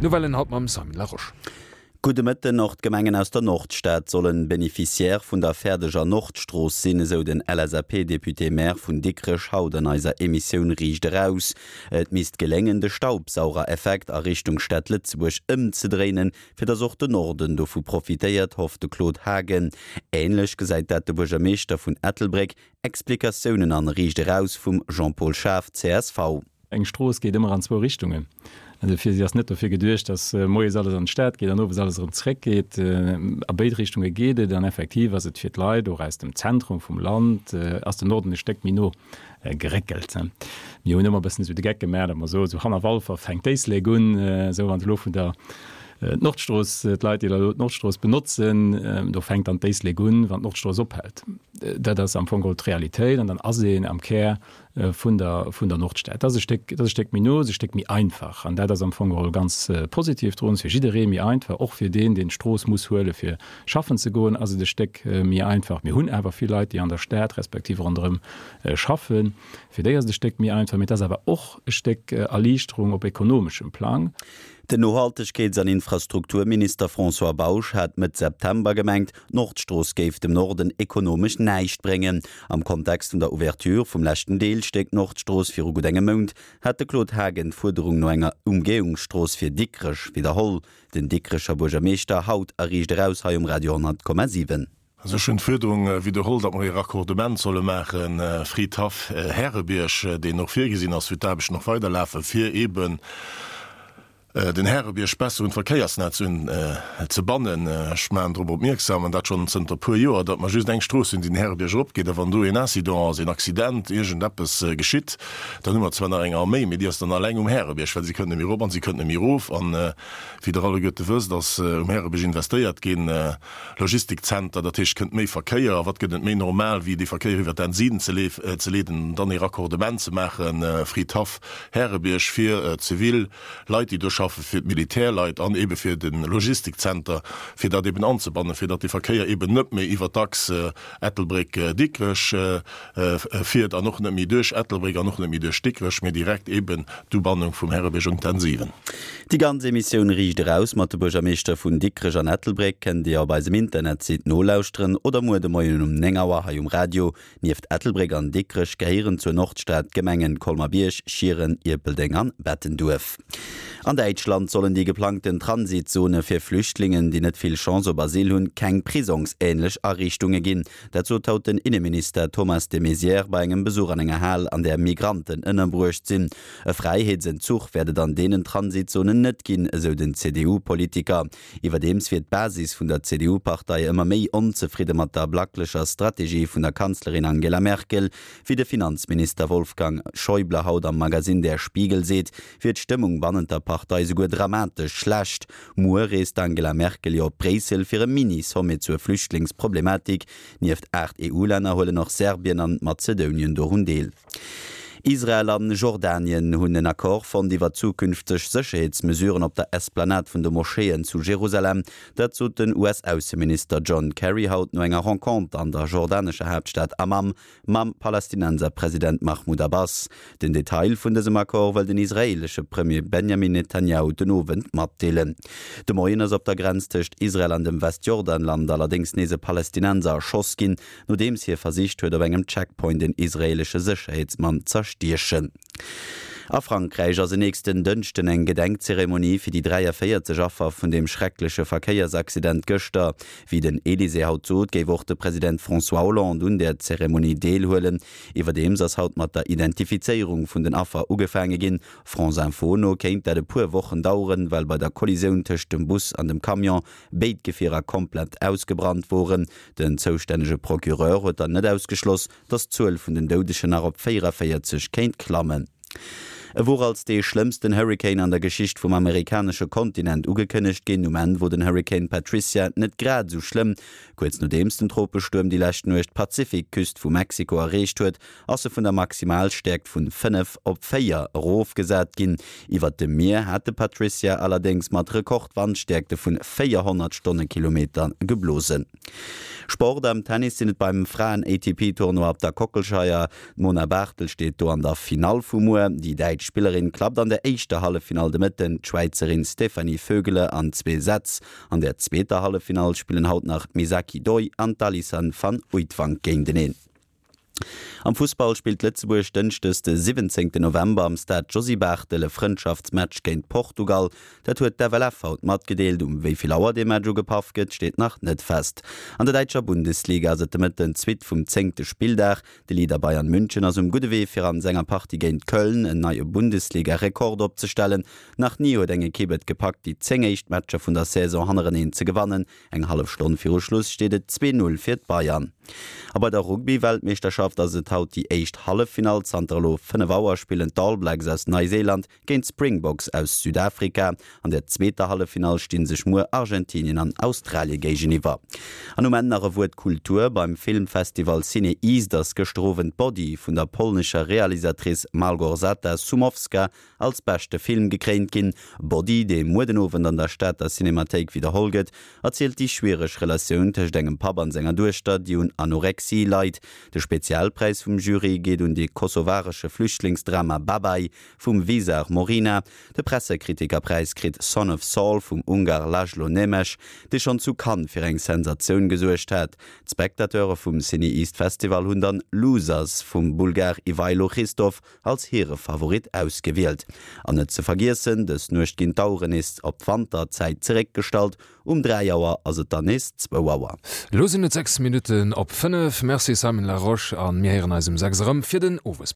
D'Nouvellen haut mam Simon Larosche. Gudde Mëtten. Och d'Gemengen aus der Nordstad sollen Bénéficiaire vun der fäerdeger Nordstrooss sinn, esou den LSAP-Député-Maire vun Dikrech haut an eiser Emissioun Riicht Eraus. Et misst geléngen, de Staubsaugereffekt a Richtung Stad Lëtzebuerg ëmzedréinen, fir datt och de Norden dovu profitéiert, hofft de Claude Haagen. Änlech gesäit dat de Buergermeeschter vun Ettelbréck. Explikatiounen an Riicht Eraus vum Jean-Paul Schaaf, csv. Eng Strooss geet ëmmer an zwou Richtungen. Dofir, si ass net dofir geduecht, datt moies alles an d'Stad geet an owes alles erëm zeréckgeet. A béid Richtunge geet et an effektiv ass et fir d'Leit och aus dem Zentrum vum Land, ass den Norden e Stéck méi no geréckelt. Mir hunn ëmmer e bëssen esou de Geck gemaach, datt mer soen, esou hanner Walfer fänkt d'Éislek un, esou wann se elo vun der Nordstrooss, d'Leit, déi elo d'Nordstrooss benotzen, do fänkt dann d'Éislek un, wann d'Nordstrooss ophält. Dat ass am Fong geholl d'Realitéit an dann ass een am Kär vun der, vun der Nordstad. Dat ass e Stéck, dat ass e Stéck méi no, ass e Stéck méi einfach. An dat ass am Fong geholl ganz positiv drun. Ass fir jidderee méi einfach, och fir deen, deen d'Strooss muss huele fir schaffen ze goen, ass et e Stéck méi einfach. Mir hunn awer vill Leit, déi an der Stad respektiv ronderëm schaffen. Fir déi ass et e Stéck méi einfach. Mee et ass awer och e Stéck Erliichterung op ekonomeschem Plang. Den Nohaltegkeets an Infrastrukturminister François Bausch hat Mëtt September gemengt, d'Nordstrooss géif dem Norden ekonomesch näischt bréngen. Am Kontext vun der Ouverture vum leschten Deelstéck Nordstrooss viru gutt engem Mount hat de Claude Haagen d'Fuerderung no enger Umgehungsstrooss fir Dikrech widderholl. Den Dikrecher Buergermeeschter haut a Riicht Eraus hei um Radio 100,7. Also ech hunn d'Fuerderung widderholl, datt mer ee Raccordement solle maache Fridhaff, Härebierg, deen och virgesinn ass, wou d'Aarbechten och weiderlafen, fir eeben den Härebierg besser un d'Verkéiersnetz un ze bannen. Ech maachen drop opmierksam, an dat schonn zënter e puer Joer, datt mer just eng Strooss hunn, déi den Härebierg eropgeet. A wann do een Incident ass, een Accident, iergendeppes geschitt, dann hu mer zwar nach eng Arméi, mee déi ass dann alleng um Härebierg, well si kënnt net méi erop an si kënnt net méi erof. An wéi Der alleguerte wësst, ass um Härebierg investéiert ginn. Logistikzenter, dat heescht, et kënnt méi Verkéier. A wat gëtt et méi normal, wéi dee Verkéier iwwer d'N 7 ze leeden an dann ee Raccordement ze maachen, Fridhaff, Härebierg, fir zivil Leit, déi do schaffen, fir d'Militärleit an eebe fir de Logistikzenter, fir dat eeben anzebannen, fir datt dee Verkéier eeben net méi iwwer d'Achs Ettelbréck-Dikrech fiert an och net méi duerch Ettelbréck an och net méi duerch Dikrech, mee direkt eeben d'Ubannung vum Härebierg un d'N 7. Déi ganz Emissioun Riicht Eraus mat de Buergermeeschter vun Dikrech an Ettelbréck kënnt Dir op eisem Internetsite nolauschteren oder muer de Moien um 9 Auer hei um Radio. Nieft Ettelbréck an Dikrech gehéieren zur Nordstad d'Gemengen Colmer-Bierg, Schieren, Ierpeldeng an Bettenduerf. An Däitschland sollen déi geplangten Transitzone fir Flüchtlingen, déi net vill Chance op Asyl hunn, keng prisongsähnlech Ariichtunge ginn. Dat sot haut den Inneminister Thomas de Maizière bei engem Besuch an enger Hal, an där Migranten ënnerbruecht sinn. E Fräiheetsentzuch wäert et an deenen Transitzonen net ginn, esou den CDU-Politiker. Iwwerdeems wier d'Basis vun der CDU-Partei ëmmer méi onzefridde mat der blacklecher Strategie vun der Kanzlerin Angela Merkel. Wéi de Finanzminister Wolfgang Schäuble haut am Magazin Der Spiegel seet, wier d'Stëmmung bannent der Partei souguer dramatesch schlecht. Muer reest d'Angela Merkel jo op Bréissel fir e Mini-Sommet zur Flüchtlingsproblematik. Nieft 8 EU-Länner huelen och Serbien an Mazedounien dorun deel. Israel an Jordanien hunn en Accord fonnt iwwer zukünfteg Sécherheetsmesuren op der Esplanade vun de Moscheeën zu Jerusalem. Dat sot den US-Ausseminister John Kerry haut no enger Renconter an der jordanescher Haaptstad Amman mam Palästinenserpresident Mahmoud Abbas. Den Detail vun dësem Accord wëll den israeelesche Premier Benjamin Netanjahu den Owend matdeelen. De Moien ass op der Grenz tëscht Israel an dem Westjordanland allerdéngs nees e Palästinenser erschoss ginn, nodeems hie versicht huet op engem Checkpoint en israeelesche Sécherheetsmann z'erstiechen. A Frankräich ass en nächsten Dënschden eng Gedenkzeremonie fir déi 43 Affer vun deem schreckleche Verkéiersaccident gëschter. Wéi den Elysée haut sot, géif och de President François Hollande un där Zeremonie deelhuelen. Iwwerdeems ass haut mat der Identifizéierung vun den Affer ugefaange ginn. France Info no kéint dat e puer Wochen daueren, well bei der Kollisioun tëscht dem Bus an dem Camion béid Gefierer komplett ausgebrannt woren. Den zoustännege Procureur huet dann net ausgeschloss, datt d'Zuel vun den Doudegen nach op 44 kéint klammen. E wor als dee schlëmmsten Hurrikan an der Geschicht vum amerikanesche Kontinent ugekënnegt ginn. Um Enn wor den Hurrikan Patricia net grad esou schlëmm. Kuerz nodeems den Tropestuerm déi lescht Nuecht d'Pazifikküst vu Mexiko erreecht huet, ass e vun der Maximalstäerkt vun 5 op 4 erofgesat ginn. Iwwert dem Mier hat de Patricia allerdéngs mat Rekordwandstäerkte vun 400 Stonnekilometer geblosen. Sport, Am Tennis sinn et beim Fraen-ATP-Tournoi op der Kockelscheier. D'Mona Barthel steet do an der Finall vu muer. Déi däitsch. Spillerin klappt an der éischter Halleffinall de Mëtten d'Schwäizerin Stefanie Vögele an zwee Sätz. An der zweeter Halleffinall spillen haut nach d'Misaki Doi an d'Alison van Uytvanck géinteneen. Am Fussball spillt Lëtzebuerg Dënschdes de 17 November am Stade Josy Barthel e Frëndschaftsmatch géint Portugal. Dat huet d'FLF haut matgedeelt. Um wéi vill Auer dee Match ugepaff gëtt, steet nach net fest. An der däitscher Bundesliga ass et de Mëtten d'Suite vum zéngte Spilldag. De Leader Bayern München ass um gudde Wee fir an senger Partie géint Köln en neie Bundesliga-Rekord opzestellen. Nach ni huet eng Ekipp et gepackt, déi 10 éischt Matcher vun der Saison hannereneen ze gewannen. Eng hallef Stonn viru Schluss steet et 2, 0 fir d'Bayern. A bei der Rugby-Weltmeeschterschaft ass et haut déi éischt Halleffinall. Zanter elo 5 Auer spillen d'All Blacks aus Neiséiland géint d'Springboks aus Südafrika. An der zweeter Halleffinall sti sech muer Argentinien an Australie géigeniwwer. An um Enn nach e Wuert Kultur, Beim Filmfestival CinEast ass gëschter Owend Body vun der polnescher Realisatrice Malgorzata Szumowska als beschte Film gekréint ginn. Body, dee muer den Owend an der Stater Cinemathéik widderholl gëtt, erzielt déi schwiereg Relatioun tëscht engem Papp an senger Duechter, déi un Anorexie leit. De Spezialpräis vum Jury geet un de kosovaresche Flüchtlingsdrama Babaj vum Visar Morina. De Pressekritikerpräis kritt Son of Saul vum Ungar László Nemes, dee schonn zu Cannes fir eng Sensatioun gesuergt hat. D'Spectateure vum CinEast Festival hunn dann Losers vum Bulgar Ivaylo Hristov als hire Favorit ausgewielt. An net ze vergiessen, dës Nuecht ginn d'Aueren nees op d'Wanterzäit zeréckgestallt, um 3 Auer ass et dann nees zwou Auer. Elo sinn et 6 Minutten op 5. Merci Simon Larosche a mir héieren eis um 6 erëm fir den Owesbléck.